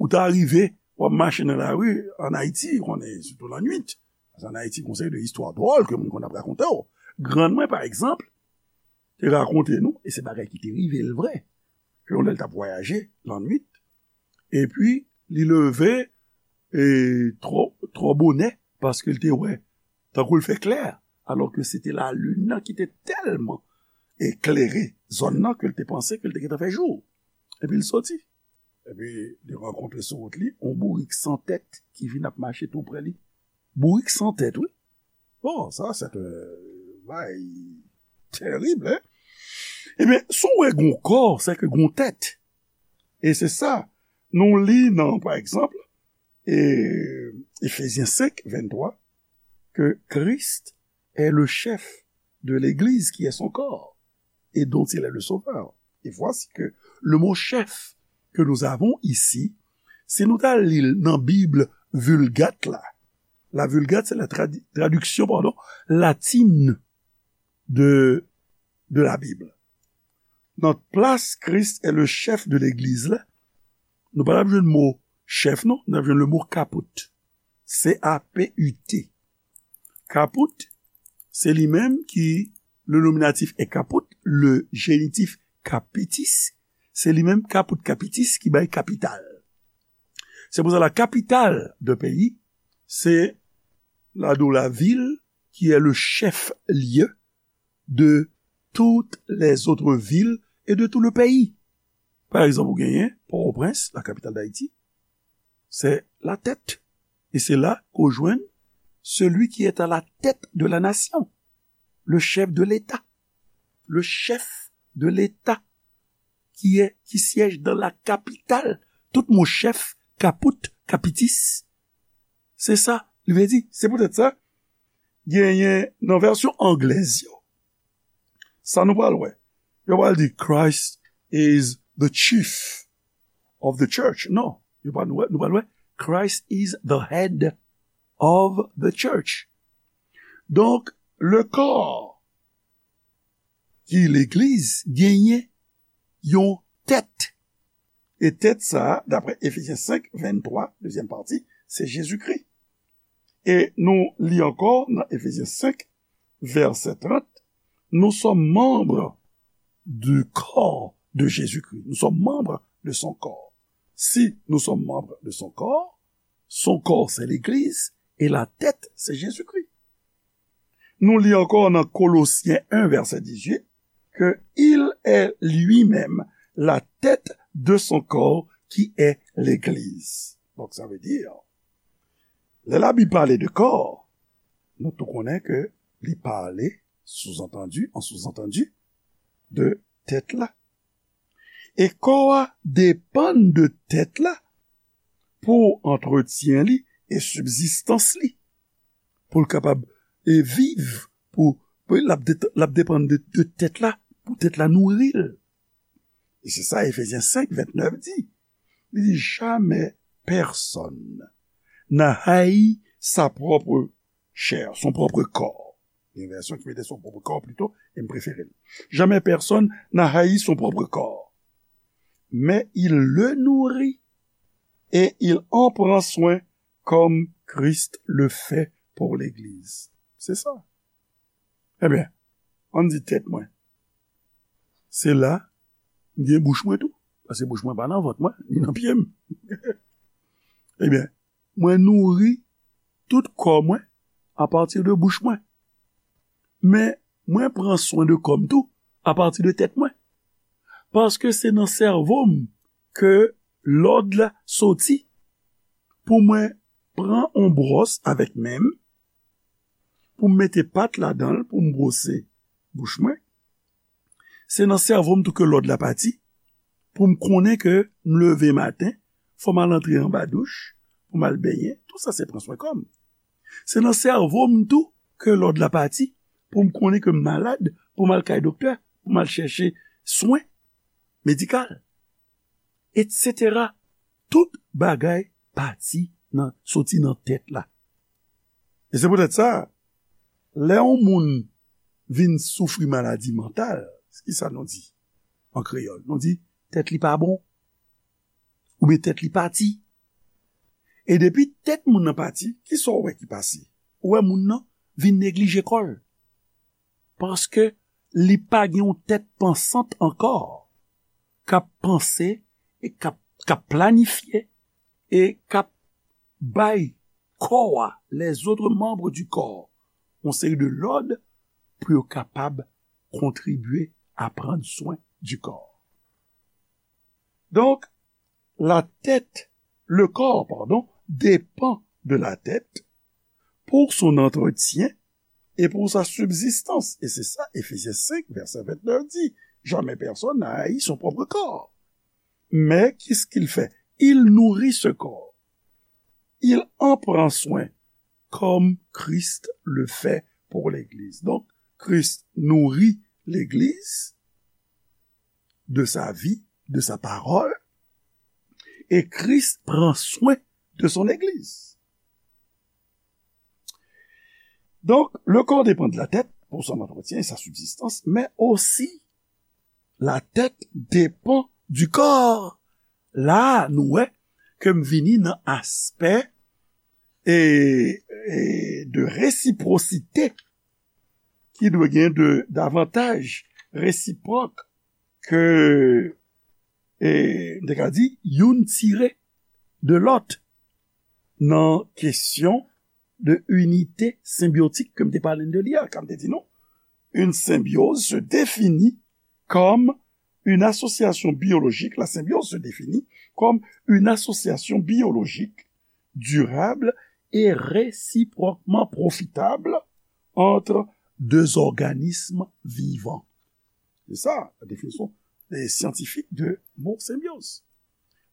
ou ta rive, w ap mache nan lari ann Ayiti, konnen, sitou lannwit. Paske ann Ayiti, gon seri de istwa dwòl ke moun konn ap rakonte w. Grann mwen, pa egzanp, te rakonte nou, e se bagay ki te rive l vre, ke yon lè l t ap vwayaje lannwit, epi li leve, e, twò, twò bonè, paske l te wè, tankou l fè klè, alò ke se te lalin nan ki te tèlman eklere zòn nan ke l te panse ke l te gentan fè jou. Epi l soti. Epi li rankontre sou wout li yon bourik san tèt ki vin ap mache tou pre li. Bourik san tèt, wi. Bon, sa, se te bay terib, hein? Ebyen, si w wè gon kò, se ke gon tèt. E se sa, nou li nan, pa egzanp, e, Efezyen senk, venntwa, que Christ est le chef de l'Église qui est son corps et dont il est le sauveur. Et voici que le mot chef que nous avons ici, si nou ta li l nan Bib Vulgate la, la Vulgate, c'est la tradi- traduction, pardon, latine de, de la Bible. Nan plas Christ est le chef de l'Église la, nou pa t ap jwenn mo chèf, non, n ap jwenn le mo kaput. C A P U T. Kaput, se li menm ki, le nominatif est caput, le génitif capitis, se li menm caput capitis ki bay kapital. Se pou sa la capitale de pays, se la, de la ville qui est le chef-lieu de toutes les autres villes et de tout le pays. Pa egzanp, ou genyen Pòtoprens, la capitale d'Haïti, c'est la tête. Et c'est là qu'on joint celui qui est à la tête de la nation, le chef de l'État. Le chef de l'État qui est, qui siège dans la capitale. Tout mo chèf, kaput, kapitis, se sa li vle di. Se poutèt sa, genyen nan vèsyon anglèz yo, sa nou pral wè. Yo pral di, "Christ is the chief of the church." Non, yo pral wè, nou pral wè, "Christ is the head of the church." Donk, le corps ki legliz genyen yon tèt. E tèt sa a, daprè Efezyen senk, venntwa, dezyèm pati, se Jezikri. E nou li ankò nan Efezyen senk, vèsè trant, nous sommes membres du corps de Jésus-Christ. Nous sommes membres de son corps. Si nous sommes membres de son corps, son corps, c'est l'Église, et la tête, c'est Jésus-Christ. Nou li ankò nan Kolosyen en, vèsè dizuit, que il est lui-même la tête de son corps, qui est l'Église. Donk, sa vle di, lè Labib pale de kò, nou tou konnen ke li pale, sous-entendu, en sous-entendu, de tèt la. E kò a depann de tèt la pou antretyen li e sibzistans li, pou l kapab, e, viv, pou, pou l ap det- l ap depann de, de tèt la, pou tèt la nouri l. E se sa Efezyen senk, ventnèf di. Li di, jamais personne n'a haï sa propre chair, son propre corps. Gen vèsyon ki mete son propre corps plito, e m prefere l. Jamais personne n'a haï son propre corps, mais il le nourrit et il en prend soin comme Christ le fait pour l'Église. Se sa. Ebyen, ann di tèt mwen. Se la, m gen bouch mwen tou. Paske bouch mwen pa nan vant mwen, ni nan pye m. Ebyen, mwen nouri tout kò mwen apati de bouch mwen. Men, mwen pran swen de kò m tou apati de tèt mwen. Paske se nan sèvo m ke lòd la soti pou mwen pran on bwòs avèk men m, pou m mete pat ladan l, pou m bwose bouch mwen. Se nan sèvo m tou ke lòd la pati, pou m konnen ke m leve maten, fò m al antre anba douch, pou m al benyen, tou sa se pran swen kò m. Se nan sèvo m tou ke lòd la pati, pou m konnen ke m malad, pou m al kay doktè, pou m al chèche swen medikal, etsetera. Tout bagay pati nan, soti nan tèt la. E se poutèt sa, lè yon moun vin soufri maladi mantal, ki sa nou di an kreyòl? Nou di, tèt li pa bon, oubyen tèt li pati. E depi tèt moun nan pati, ki sa w wè ki pase? Ou wè moun nan vin neglije kò l. Paske li pa gen yon tèt pansant ankò, k ap panse e k ap, k ap planifye e k ap bay kò a, les autres membres du corps, yon seri de lòd pou yo kapab kontribye a pran swen di kò. Donk, la tête, le corps, pardon, dépend de la tête pour son entretien et pour sa subsistance. Et c'est ça, Éphésiens cinq, verset vingt-neuf dit, jamais personne n'a haï son propre corps. Mais qu'est-ce qu'il fait? Il nourrit ce corps. Il en prend soin comme Christ le fait pour l'Église. Donc, Christ nourrit l'Église de sa vie, de sa parole, et Christ prend soin de son Église. Donc, le corps dépend de la tête pour son entretien et sa subsistance, mais aussi la tête dépend du corps. La, nou wè ke m vini nan aspè e, e de resiprosite ki dwe gen de davantaj resipwòk ke, e, m te ka di, youn tire de lòt nan kesyon de inite senbyotik ke m te pale de li a, kan m te di nou, une symbiose se définit comme une association biologique, la symbiose se définit comme une association biologique durable et réciproquement profitable entre deux organismes vivants. C'est ça la définition des scientifiques de mot symbiose.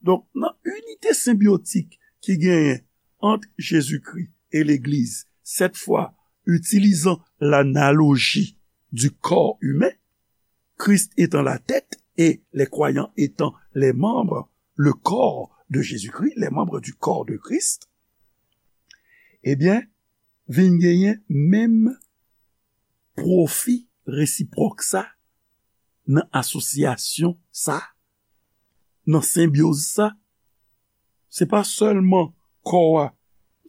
Donk, nan inite senbyotik ki genyen ant Jezikri e Legliz, cette fois utilisant l'analogie du corps humain, Christ étant la tête et les croyants étant les membres, le corps de Jésus-Christ, les membres du corps de Christ, ebyen, vin genyen menm pwofi resipwòk sa nan asosyasyon sa, nan senbyoz sa. Se pa sèlman kò a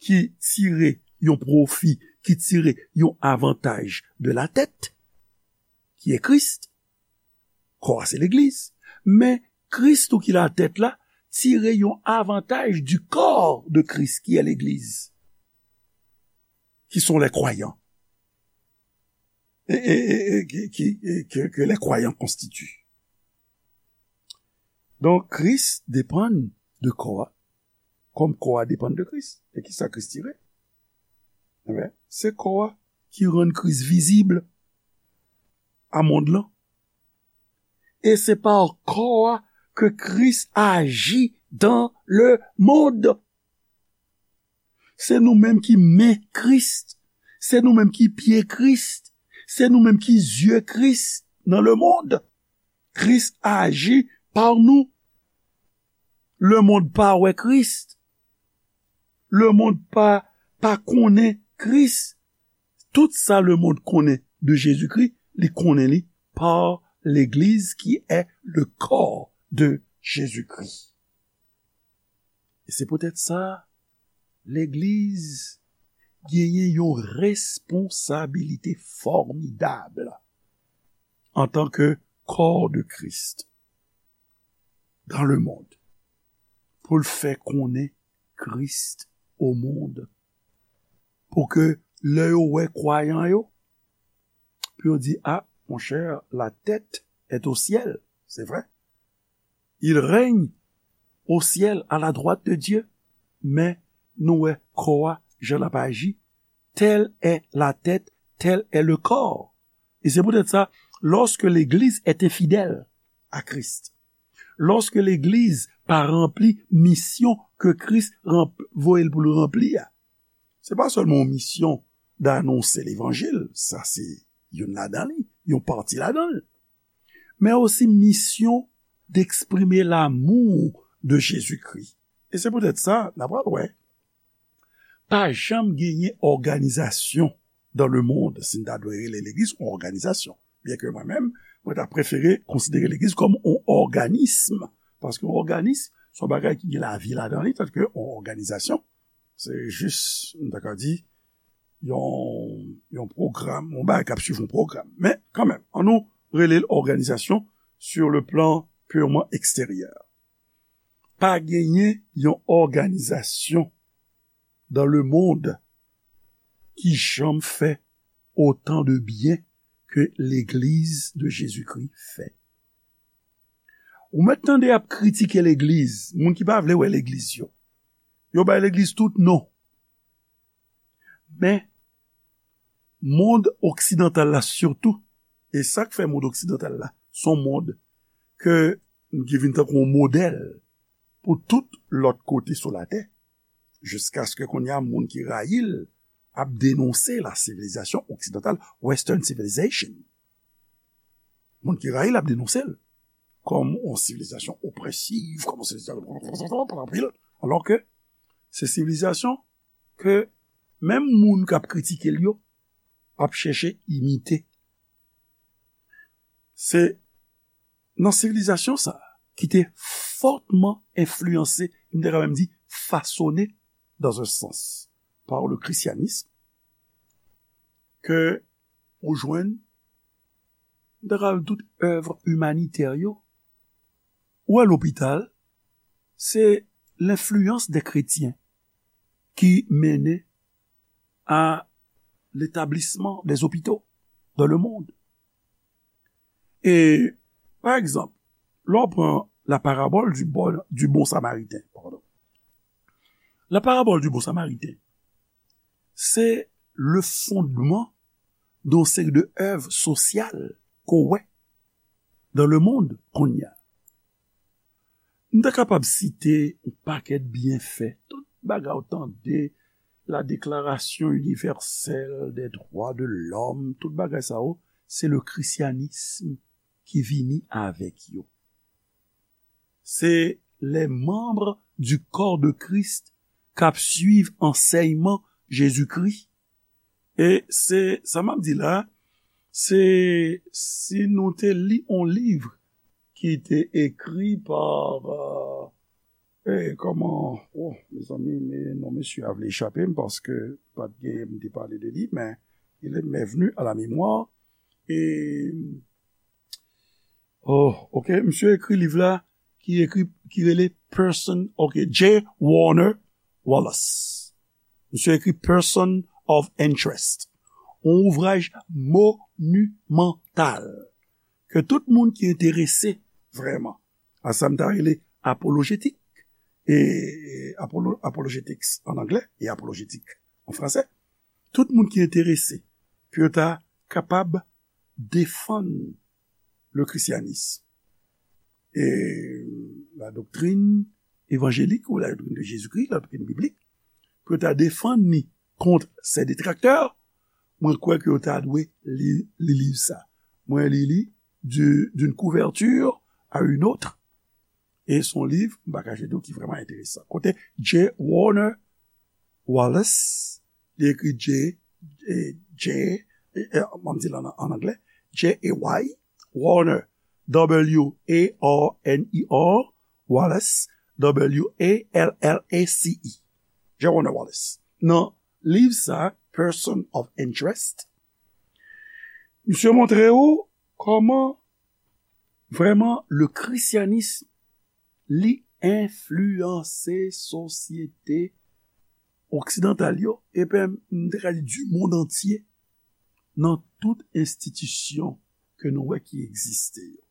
ki tire yon pwofi, ki tire yon avantaj de la tèt, ki est Christ. Kò a se legliz. Men Kris tou ki latèt la, tire yon avantaj du corps de Christ, qui est l'église, qui sont les croyants. Et, et, et, et qui, qui, et que, que les croyants constituent. Donk, Kris depann de kò a, kòm kò a depann de Kris. E ki sa Kris tire? Ebyen, se kò a ki rann Kris vizib a mond lan. E se pa kò a ke Kris aji dans le monde. Se nou menm ki men Kris. Se nou menm ki pye Kris. Se nou menm ki zye Kris nan le monde. Kris aji pa nou. Le monde pa wè Kris. Le monde pa, pa konnen Kris. Tout sa le monde konnen de Jezikri, li konnen li pa legliz ki est le corps de Jésus-Christ. E se poutèt sa, legliz genyen yon responsabilite fòmidab antanke corps de Christ dans le monde, pou l fè konnen Kris au monde, pou ke lè yo wè kwayan yo, pou yo di, ah, mon cher, la tête est au ciel, c'est vrai. Il règne au ciel, à la droite de Dieu. Men nou wè kò a, jan l ap aji, telle est la tête, tel est le corps. E se poutèt sa, lorsque l'Église est infidèle à Christ, lorsque legliz pa ranpli misyon ke Kris ranp-, voye l pou l ranpli a, se pa sèlman yon misyon d'annoncer l'évangile, sa se youn ladan li, yon pati ladan l, men osi misyon d'exprimer l'amour de Jésus-Christ. E se poutèt sa, n a pral wè, pa janm genyen òganizasyon dans le monde, si n ta dwe rele legliz yon òganizasyon. Byen ke mwen menm, mwen ta prefere konsidere legliz kòm yon òganism, paske yon òganism, se yon bagay ki gen lavi ladan li, tandiske yon òganizasyon, se jis, m ta ka di, yon, yon pwogram, yon bagay k ap swiv yon pwogram. Men, kanmenm, ann nou rele l òganizasyon sur le plan purement extérieur. Pa genyen yon òganizasyon dans le monde ki janm fè otan de byen ke Legliz de Jezikri fè. Ou mèt tande y ap kritike Legliz, moun ki pa vle wè Legliz yo. Yo bay Legliz tout non. Men, mond oksidantal la sitou, e sa k fè mond oksidantal la, se yon mond ke, ki vin tankou yon modèl pou tout lòt kote sou latè, jiskaske kounye a, moun ki rayi l ap denonse la sivilizasyon oksidantal, Western civilization. Moun ki rayi l ap denonse l kòm yon sivilizasyon opresiv, kòm yon sivilizasyon anpil, alò ke se sivilizasyon ke menm moun k ap kritike l yo ap chèche imite. Se nan sivilizasyon sa a ki te fòtman enfliyanse, m te ka menm di fasone, dans un sens, par le christianisme, ke ou jwenn, m te ka di tout èv imanitè yo. Ou wè lopital, se lenfliyans de kretyen ki mennen a letablisman de zopito dans le monde. E, pa egzanp, lè w pran la parabole du bon, du bon Samaritain, pardon. La parabole du bon Samaritain, se le fondman de yon seri de èv sosyal ke w wè dans le monde kounye a. M ta kapab site yon pakèt byenfè, tout bagay ou tande, la Déclaration universelle des droits de l'homme, tout bagay sa yo, se le christianisme ki vini avèk yo. Se les membres du corps de Christ k ap swiv ansèyman Jezikri. E se sa m ap di la, se si nou te li yon liv ki te ekri pa, euh, eh, kòman, oh, mezanmi, men non mesye a vle echape m paske pa t gen, m te pale de li, men il est m'est venu à la mémoire. E, oh, ok, misye ekri liv la ki ekri, ki rele Person, ok, J. Warner Wallace. Misye ekri Person of Interest. Yon ouvraj monimantal ke tout moun ki enterese vrèman a sa m ta rele apolojetik, e apolo-, apologetics an anglè e apolojetik an fransè, tout moun ki enterese pou yo ta kapab defann le christianisme et la doctrine évangélique ou la doctrine de Jésus-Christ, la doctrine biblique, pou yo ta defann li kont ses détracteurs, mwen kwè ke yo ta dwe li, li liv sa. Mwen li li du, d'une couverture à une autre. E se yon liv, m pa kache di w, ki vrèman enteresan. Kote J. Warner Wallace, li ekri J, eh, J, eh, eh, m ap di l an, an anglè, J A Y, Warner, W A R N E R, Wallace, W A L L A C E. J. Warner Wallace. Nan liv sa, Person of Interest, misye montre ou kòman vrèman le christianisme li enfliyanse sosyete oksidantal yo, epi m te ka di du monde entier, nan tout enstitisyon ke nou wè ki egziste yo.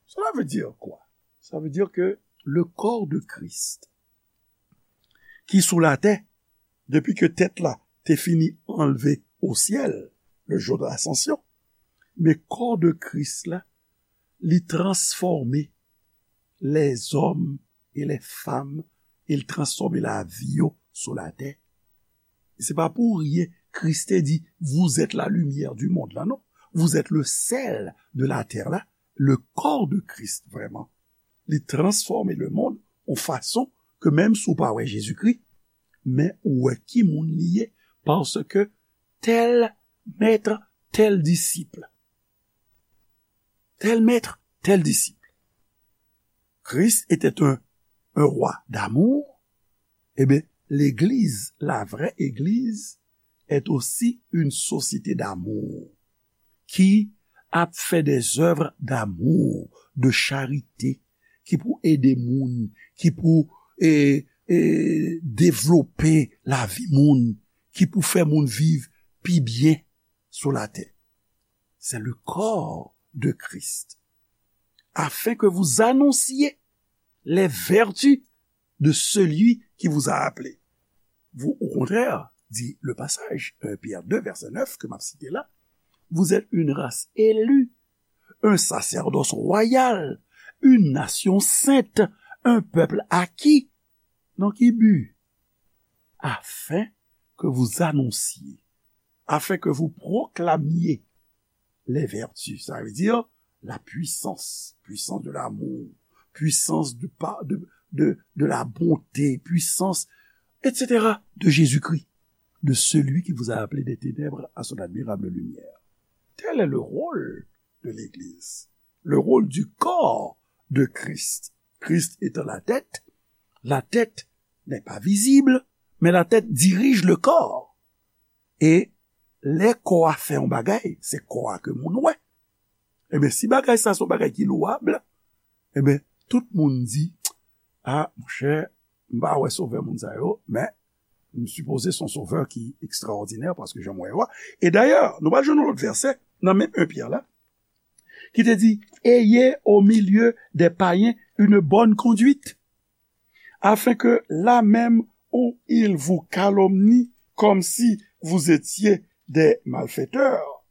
Cela veut dire quoi? Ça veut dire que le corps de Christ, ki sou latè, depi ke tèt la te fini anlve au ciel, le jour de l'ascension, men kò de Kris la, li transfòme lèzòm e lèfanm, e l transfòme lavi yo sou latè. E se pa pou ryen Kris te di, vous êtes la lumière du monde la, non. Vous êtes le sel de la terre la. Le corps de Christ, vrèman, li transfòme le monde yon fason ke menm si w pa wè Jezikri, men ou wè ki moun li ye, paske tel maître, tel disciple. Tel maître, tel disciple. Christ était un, un roi d'amour. Eh bien, l'Église, la vraie Église, est aussi une société d'amour qui a fait des œuvres d'amour, de charité, ki pou ede moun, ki pou, eh, e, devlope lavi moun, ki pou fè moun viv pi byen sou latè. C'est le corps de Christ, afin que vous annonciez les vertus de celui qui vous a appelé. Vous, au contraire, dit le passage, un Pierre deux, verset neuf, que m'a cité là, vous êtes une race élue, un sacerdoce royal, une nation sainte, un peuple acquis. Dans quel but? Afin que vous annonciez, afin que vous proclamiez les vertus, ça veut dire la puissance, puissance de l'amour, puissance de, pa- de, de, de la bonté, puissance, et cetera, de Jésus-Christ, de celui qui vous a appelé des ténèbres à son admirable lumière. Tel est le rôle de l'Église, le rôle du corps de Christ. Christ étant la tête, la tête n'est pas visible, mais la tête dirige le corps. E lè kò a fè yon bagay, se kò a ke moun wè. Ebyen, si bagay sa se yon bagay ki lwab, ebyen, tout moun di, a, monchè, m pa wè sovè moun sa yo, men m sipoze se yon sovè ki ekstraòdinè, paske jan m wè yo a. E dayè, nou pral jwenn yon lòt vèsè, nan menm un Pyè la, ki te di, ayez au milieu des païens une bonne conduite, afin que là même où ils vous calomnient comme si vous étiez des malfaiteurs,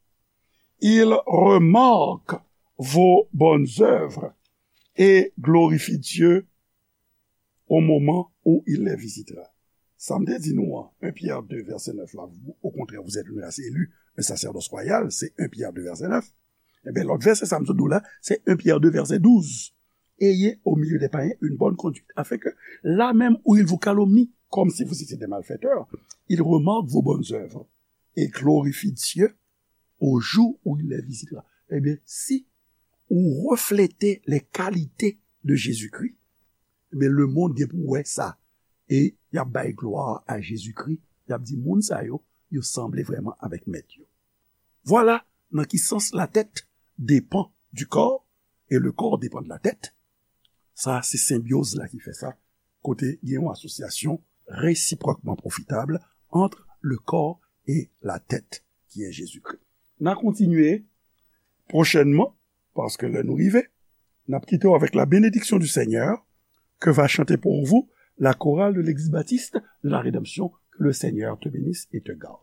ils remarquent vos bonnes œuvres et glorifient Dieu au moment où il les visitera. Sa m te di nou an, un Pierre deux, verset neuf la, vous, au contraire, vous êtes une race élue, un sacerdoce royal, se un Pierre deux, verset neuf. Ebyen, lòt vèsè sa m sot di w la, se un Pierre deux, verset douze. Ayez au milieu des païens une bonne conduite, afin que là même où ils vous calomnient, comme si vous étiez des malfaiteurs, ils remarquent vos bonnes œuvres et glorifient Dieu au jour où il les visitera. Ebyen, si ou reflete les qualités de Jésus-Christ, ebyen, lemonn gen pou wè sa. E y ap bay glwa a Jezikri. Y ap di, moun sa yo, yo sanble vrèman avèk mèt yo. Vwala nan ki sans la tête dépend du corps et le corps dépend de la tête. Sa, se senbyoz la ki fè sa, kote gen yon asosyasyon réciproquement profitable entre le corps et la tête, qui est Jésus-Christ. N a kontinye pwochènman, paske lè nou rive, n ap kite w avec la bénédiction du Seigneur, que va chanter pour vous la chorale de l'église baptiste de la Rédemption. Que le Seigneur te bénisse et te garde.